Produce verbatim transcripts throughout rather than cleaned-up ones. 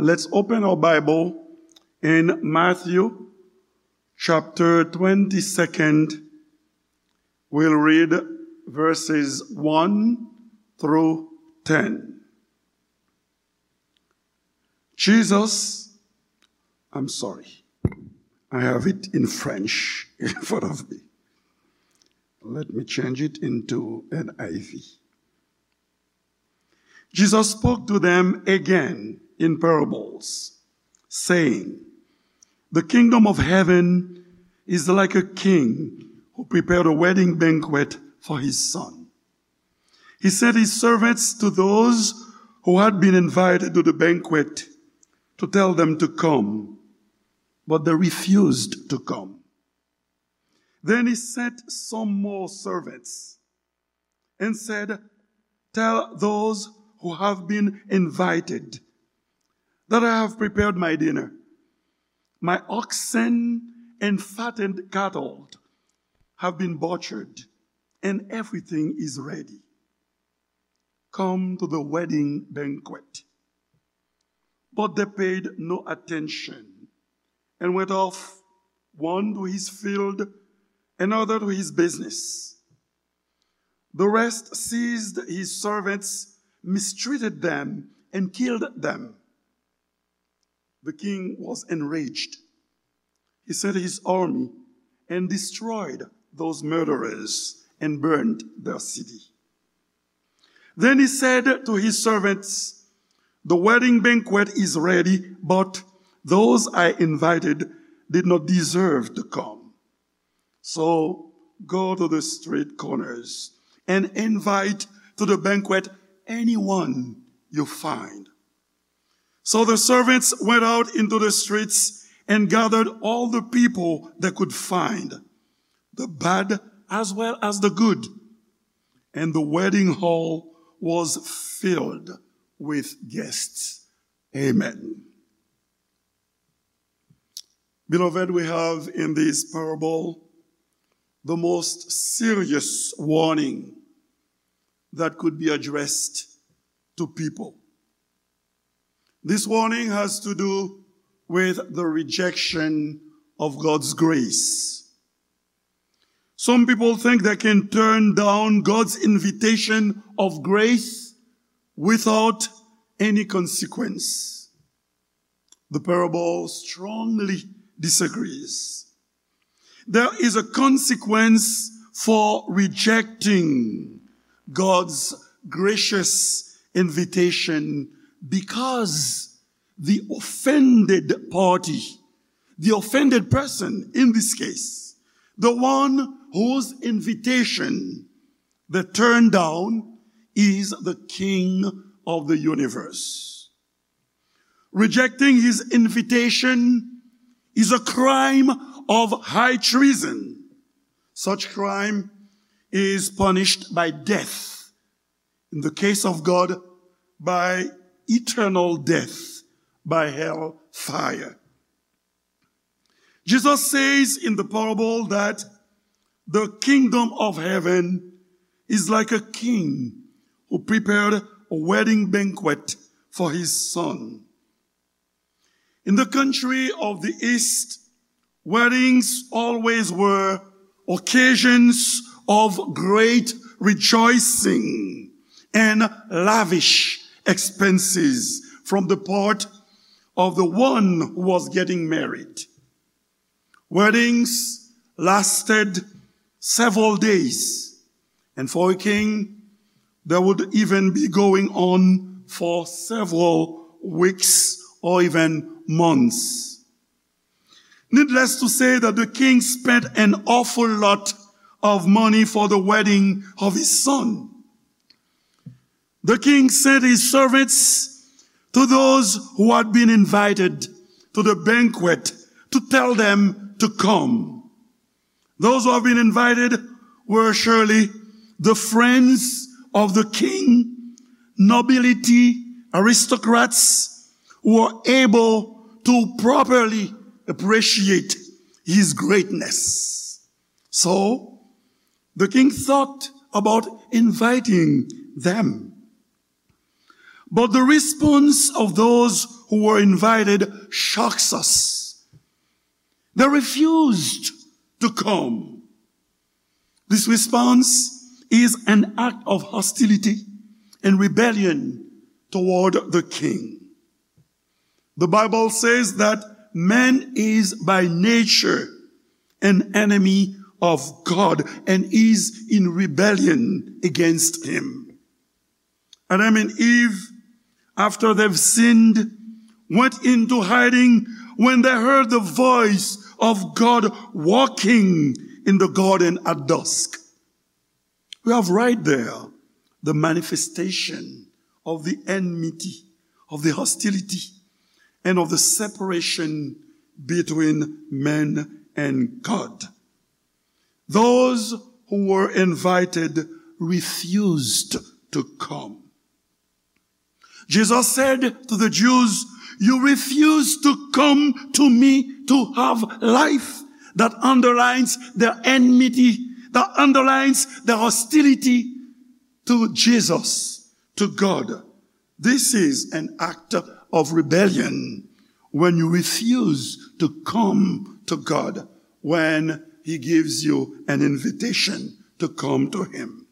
Let's open our Bible in Matthew chapter twenty-second. We'll read verses one through ten. Jesus, I'm sorry, I have it in French in front of me. Let me change it into N I V. Jesus spoke to them again in parables, saying, "The kingdom of heaven is like a king who prepared a wedding banquet for his son. He sent his servants to those who had been invited to the banquet to tell them to come, but they refused to come. Then he sent some more servants and said, 'Tell those who have been invited that I have prepared my dinner. My oxen and fattened cattle have been butchered, and everything is ready. Come to the wedding banquet.' But they paid no attention and went off, one to his field, another to his business. The rest seized his servants, mistreated them, and killed them. The king was enraged. He sent his army and destroyed those murderers and burned their city. Then he said to his servants, 'The wedding banquet is ready, but those I invited did not deserve to come. So go to the street corners and invite to the banquet anyone you find.' So the servants went out into the streets and gathered all the people they could find, the bad as well as the good. And the wedding hall was filled with guests." Amen. Beloved, we have in this parable the most serious warning that could be addressed to people. This warning has to do with the rejection of God's grace. Some people think they can turn down God's invitation of grace without any consequence. The parable strongly disagrees. There is a consequence for rejecting God's gracious invitation, because the offended party, the offended person in this case, the one whose invitation they turned down, is the King of the universe. Rejecting his invitation is a crime of high treason. Such crime is punished by death. In the case of God, by eternal death by hell fire. Jesus says in the parable that the kingdom of heaven is like a king who prepared a wedding banquet for his son. In the country of the East, weddings always were occasions of great rejoicing and lavish expenses from the part of the one who was getting married. Weddings lasted several days, and for a king, they would even be going on for several weeks or even months. Needless to say that the king spent an awful lot of money for the wedding of his son. The king sent his servants to those who had been invited to the banquet to tell them to come. Those who have been invited were surely the friends of the king, nobility, aristocrats, who were able to properly appreciate his greatness. So, the king thought about inviting them. But the response of those who were invited shocks us. They refused to come. This response is an act of hostility and rebellion toward the king. The Bible says that man is by nature an enemy of God and is in rebellion against him. Adam and Eve, after they've sinned, went into hiding when they heard the voice of God walking in the garden at dusk. We have right there the manifestation of the enmity, of the hostility, and of the separation between man and God. Those who were invited refused to come. Jesus said to the Jews, "You refuse to come to me to have life." That underlines their enmity, that underlines their hostility to Jesus, to God. This is an act of rebellion when you refuse to come to God when He gives you an invitation to come to Him.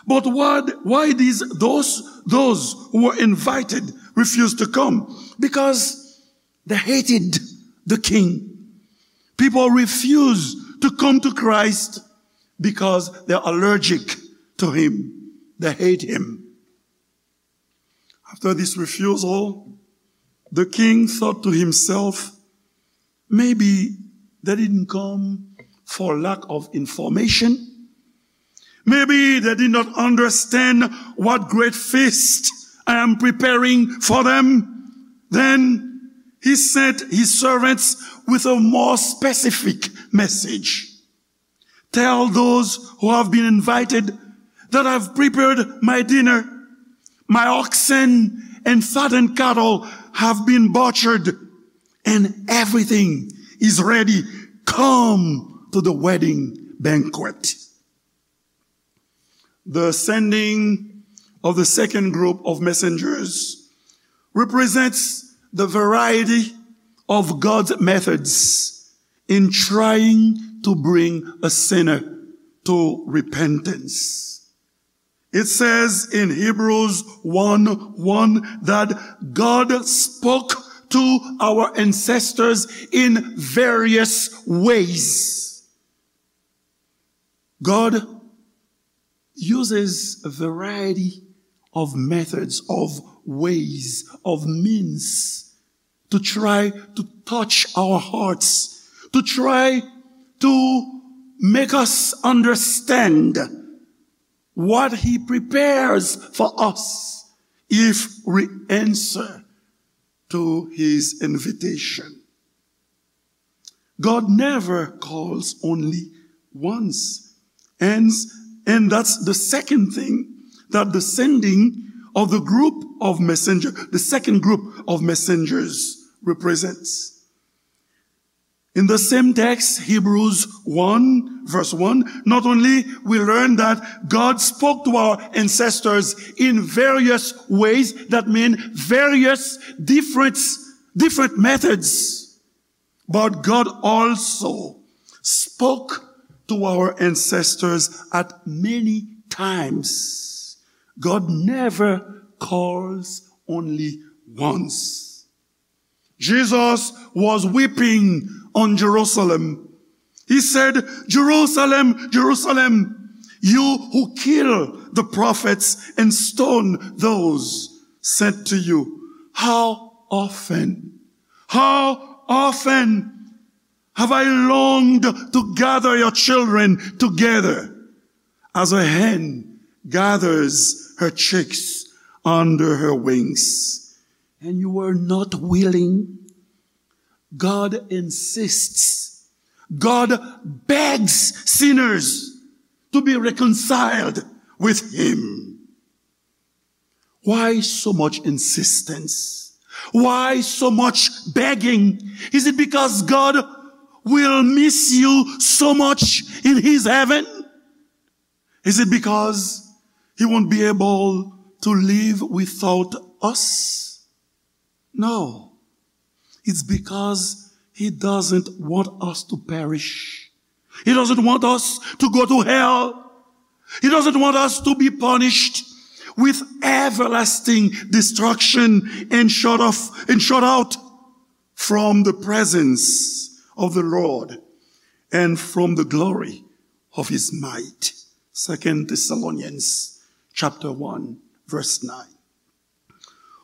But what, why these, those, those who were invited refused to come? Because they hated the king. People refuse to come to Christ because they're allergic to him. They hate him. After this refusal, the king thought to himself, "Maybe they didn't come for lack of information. Maybe they did not understand what great feast I am preparing for them." Then he sent his servants with a more specific message. "Tell those who have been invited that I've prepared my dinner. My oxen and fattened cattle have been butchered, and everything is ready. Come to the wedding banquet." The sending of the second group of messengers represents the variety of God's methods in trying to bring a sinner to repentance. It says in Hebrews one one that God spoke to our ancestors in various ways. God uses a variety of methods, of ways, of means to try to touch our hearts, to try to make us understand what He prepares for us if we answer to His invitation. God never calls only once. And, and that's the second thing that the sending of the group of messenger, the second group of messengers represents. In the same text, Hebrews one, verse one, not only we learn that God spoke to our ancestors in various ways, that mean various different, different methods, but God also spoke to our ancestors at many times. God never calls only once. Jesus was weeping on Jerusalem. He said, "Jerusalem, Jerusalem, you who kill the prophets and stone those sent to you. How often, how often have I longed to gather your children together as a hen gathers her chicks under her wings. And you were not willing." God insists. God begs sinners to be reconciled with Him. Why so much insistence? Why so much begging? Is it because God will miss you so much in His heaven? Is it because He won't be able to live without us? No. It's because he doesn't want us to perish. He doesn't want us to go to hell. He doesn't want us to be punished with everlasting destruction and shut off, and shut out from the presence of the Lord and from the glory of his might. Second Thessalonians chapter one, verse nine.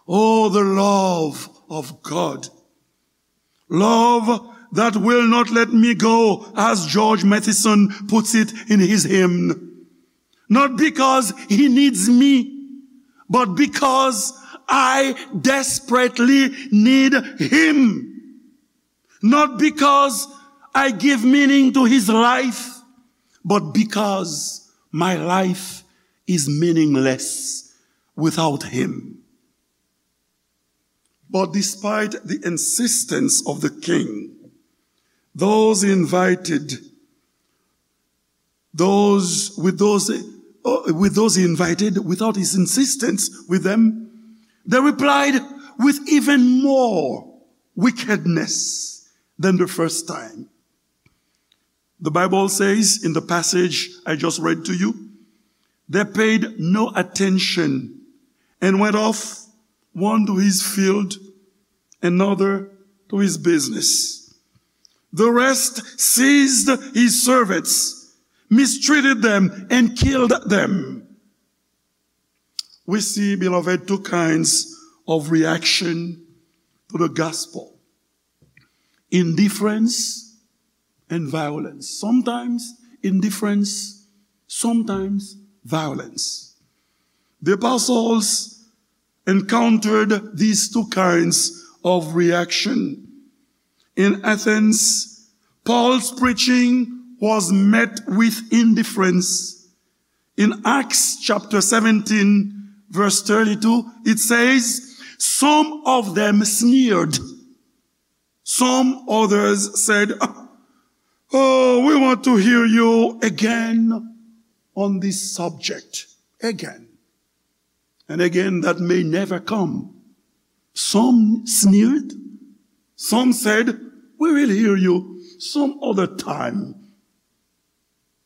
Oh, the love of God. Love that will not let me go, as George Matheson puts it in his hymn. Not because he needs me, but because I desperately need him. Not because I give meaning to his life, but because my life is meaningless without him. But despite the insistence of the king, those he invited, those with those uh, with those he invited, without his insistence with them, they replied with even more wickedness than the first time. The Bible says in the passage I just read to you, they paid no attention and went off, one to his field, another to his business. The rest seized his servants, mistreated them, and killed them. We see, beloved, two kinds of reaction to the gospel: indifference and violence. Sometimes indifference, sometimes violence. The apostles encountered these two kinds of reaction. In Athens, Paul's preaching was met with indifference. In Acts chapter seventeen, verse thirty-two, it says, "Some of them sneered." Some others said, "Oh, we want to hear you again on this subject." Again. And again, that may never come. Some sneered. Some said, "We will hear you some other time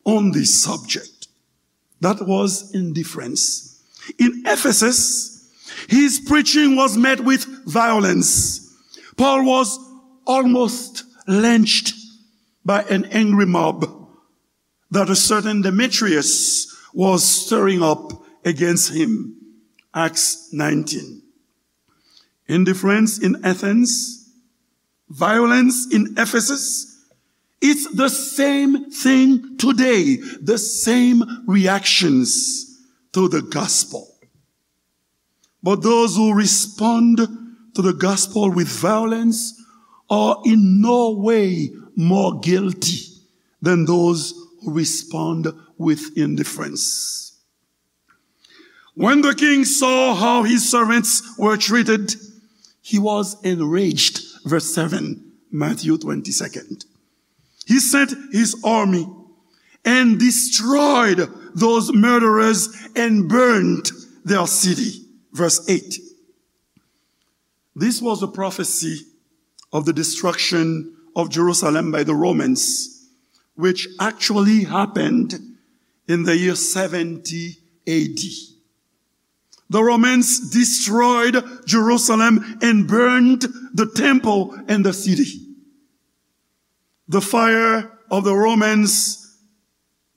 on this subject." That was indifference. In Ephesus, his preaching was met with violence. Paul was almost lynched by an angry mob that a certain Demetrius was stirring up against him. Acts nineteen. Indifference in Athens, violence in Ephesus, it's the same thing today, the same reactions to the gospel. But those who respond to the gospel with violence are in no way more guilty than those who respond with indifference. When the king saw how his servants were treated, he was enraged. Verse seven, Matthew twenty-second. He sent his army and destroyed those murderers and burned their city. Verse eight. This was a prophecy of the destruction of Jerusalem by the Romans, which actually happened in the year seventy A D. The Romans destroyed Jerusalem and burned the temple and the city. The fire of the Romans,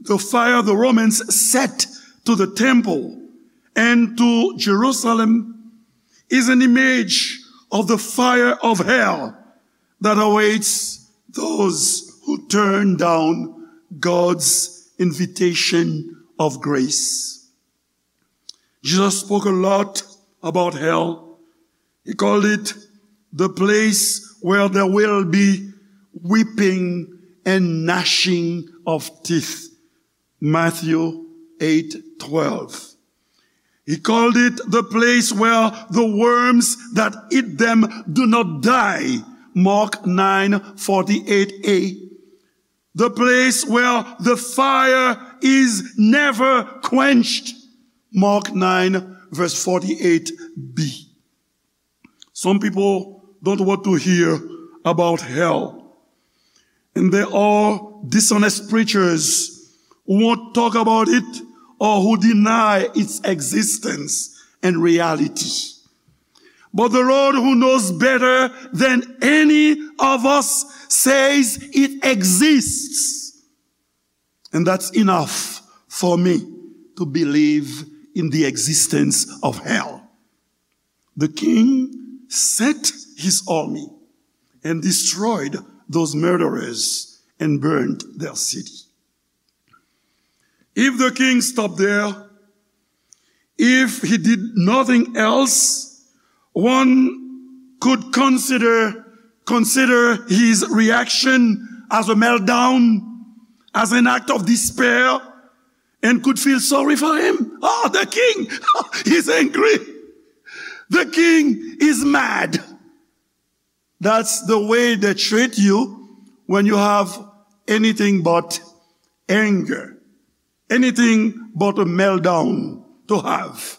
the fire the Romans set to the temple and to Jerusalem is an image of the fire of hell that awaits those who turn down God's invitation of grace. Jesus spoke a lot about hell. He called it the place where there will be weeping and gnashing of teeth. Matthew eight twelve. He called it the place where the worms that eat them do not die. Mark nine forty-eight A. The place where the fire is never quenched. Mark nine, verse forty-eight b. Some people don't want to hear about hell. And there are dishonest preachers who won't talk about it or who deny its existence and reality. But the Lord, who knows better than any of us, says it exists. And that's enough for me to believe in the existence of hell. The king sent his army and destroyed those murderers and burned their city. If the king stopped there, if he did nothing else, one could consider, consider his reaction as a meltdown, as an act of despair, and could feel sorry for him. Oh, the king is angry. The king is mad. That's the way they treat you when you have anything but anger, anything but a meltdown to have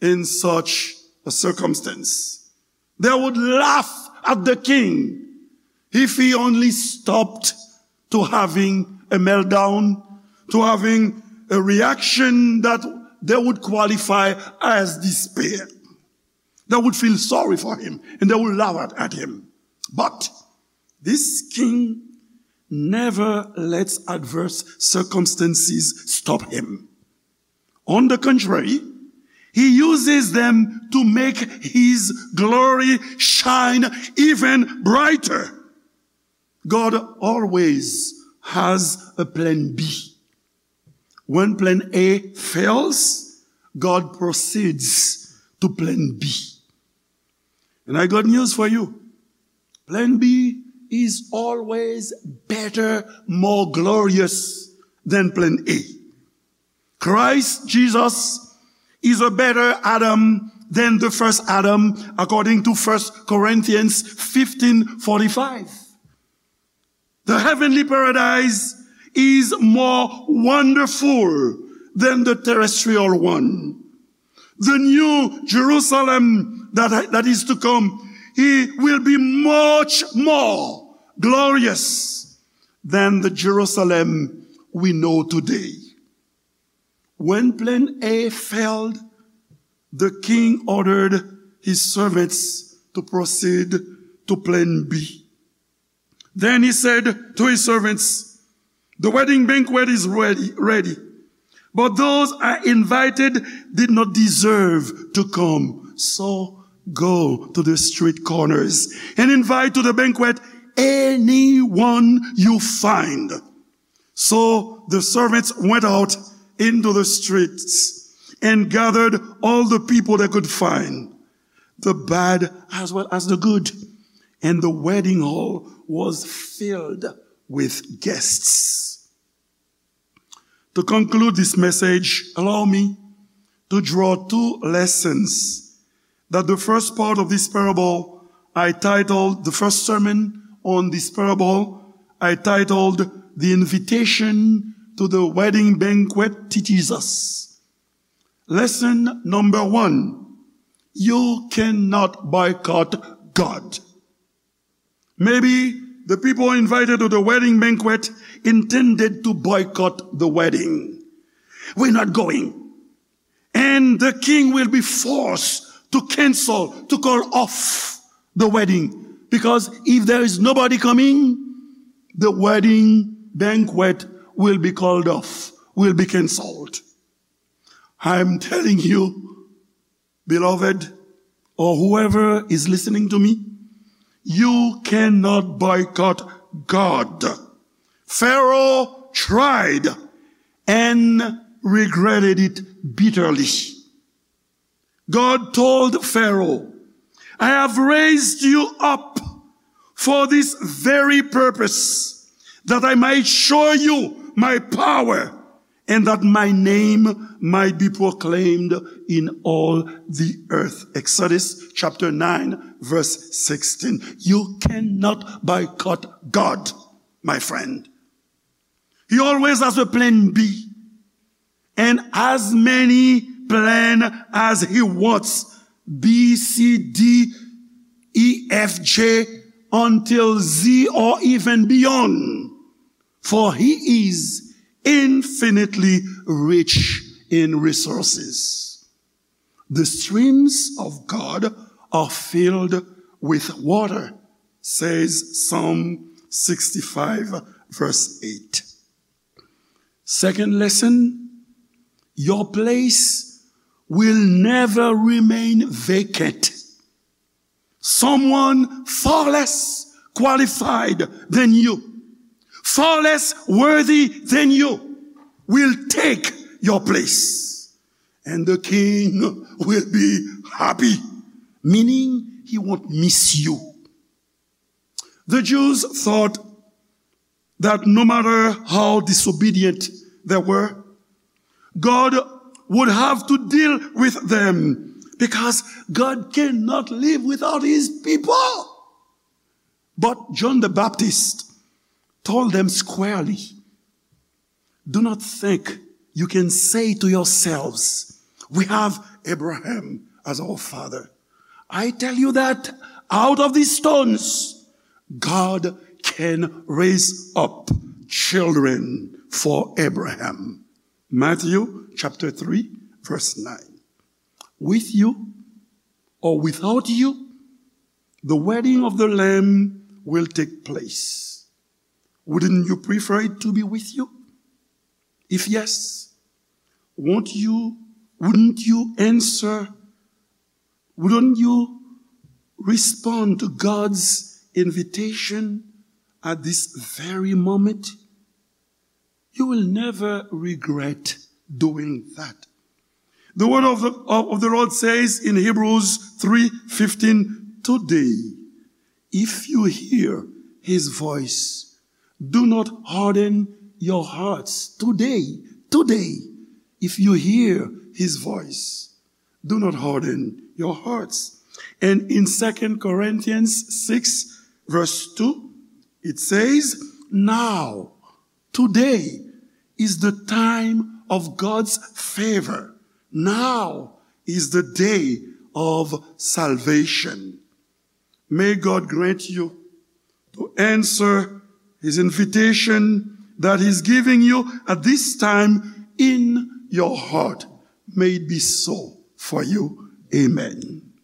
in such a circumstance. They would laugh at the king if he only stopped to having a meltdown, to having a reaction that they would qualify as despair. They would feel sorry for him and they would laugh at, at him. But this king never lets adverse circumstances stop him. On the contrary, he uses them to make his glory shine even brighter. God always has a plan B. When plan A fails, God proceeds to plan B. And I got news for you. Plan B is always better, more glorious than plan A. Christ Jesus is a better Adam than the first Adam, according to First Corinthians fifteen forty-five. The heavenly paradise is more wonderful than the terrestrial one. The new Jerusalem that, that is to come, it will be much more glorious than the Jerusalem we know today. When plan A failed, the king ordered his servants to proceed to plan B. Then he said to his servants, "The wedding banquet is ready, ready, but those I invited did not deserve to come. So go to the street corners and invite to the banquet anyone you find." So the servants went out into the streets and gathered all the people they could find, the bad as well as the good. And the wedding hall was filled with guests. To conclude this message, allow me to draw two lessons that the first part of this parable I titled, the first sermon on this parable, I titled The Invitation to the Wedding Banquet Teaches Us. Lesson number one, you cannot boycott God. Maybe the people invited to the wedding banquet intended to boycott the wedding. "We're not going." And the king will be forced to cancel, to call off the wedding. Because if there is nobody coming, the wedding banquet will be called off, will be canceled. I'm telling you, beloved, or whoever is listening to me, you cannot boycott God. Pharaoh tried and regretted it bitterly. God told Pharaoh, "I have raised you up for this very purpose, that I might show you my power and that my name might be proclaimed in all the earth." Exodus chapter nine, verse sixteen. You cannot boycott God, my friend. He always has a plan B. And as many plan as he wants, B, C, D, E, F, G, until Z or even beyond, for he is infinitely rich in resources. The streams of God are filled with water, says Psalm sixty-five, verse eight. Second lesson, your place will never remain vacant. Someone far less qualified than you, far less worthy than you, will take your place. And the king will be happy, meaning he won't miss you. The Jews thought that no matter how disobedient they were, God would have to deal with them because God cannot live without his people. But John the Baptist told them squarely, "Do not think you can say to yourselves, 'We have Abraham as our father.' I tell you that out of these stones, God can raise up children for Abraham." Matthew chapter three, verse nine. With you or without you, the wedding of the Lamb will take place. Wouldn't you prefer it to be with you? If yes, won't you, wouldn't you answer, wouldn't you respond to God's invitation at this very moment? You will never regret doing that. The word of the, of, of the Lord says in Hebrews three fifteen, "Today, if you hear his voice, do not harden your hearts." Today, today, if you hear his voice, do not harden your hearts. And in Second Corinthians six, verse two, it says, "Now, today is the time of God's favor. Now is the day of salvation." May God grant you to answer his invitation that he's giving you at this time in your heart. May it be so for you. Amen.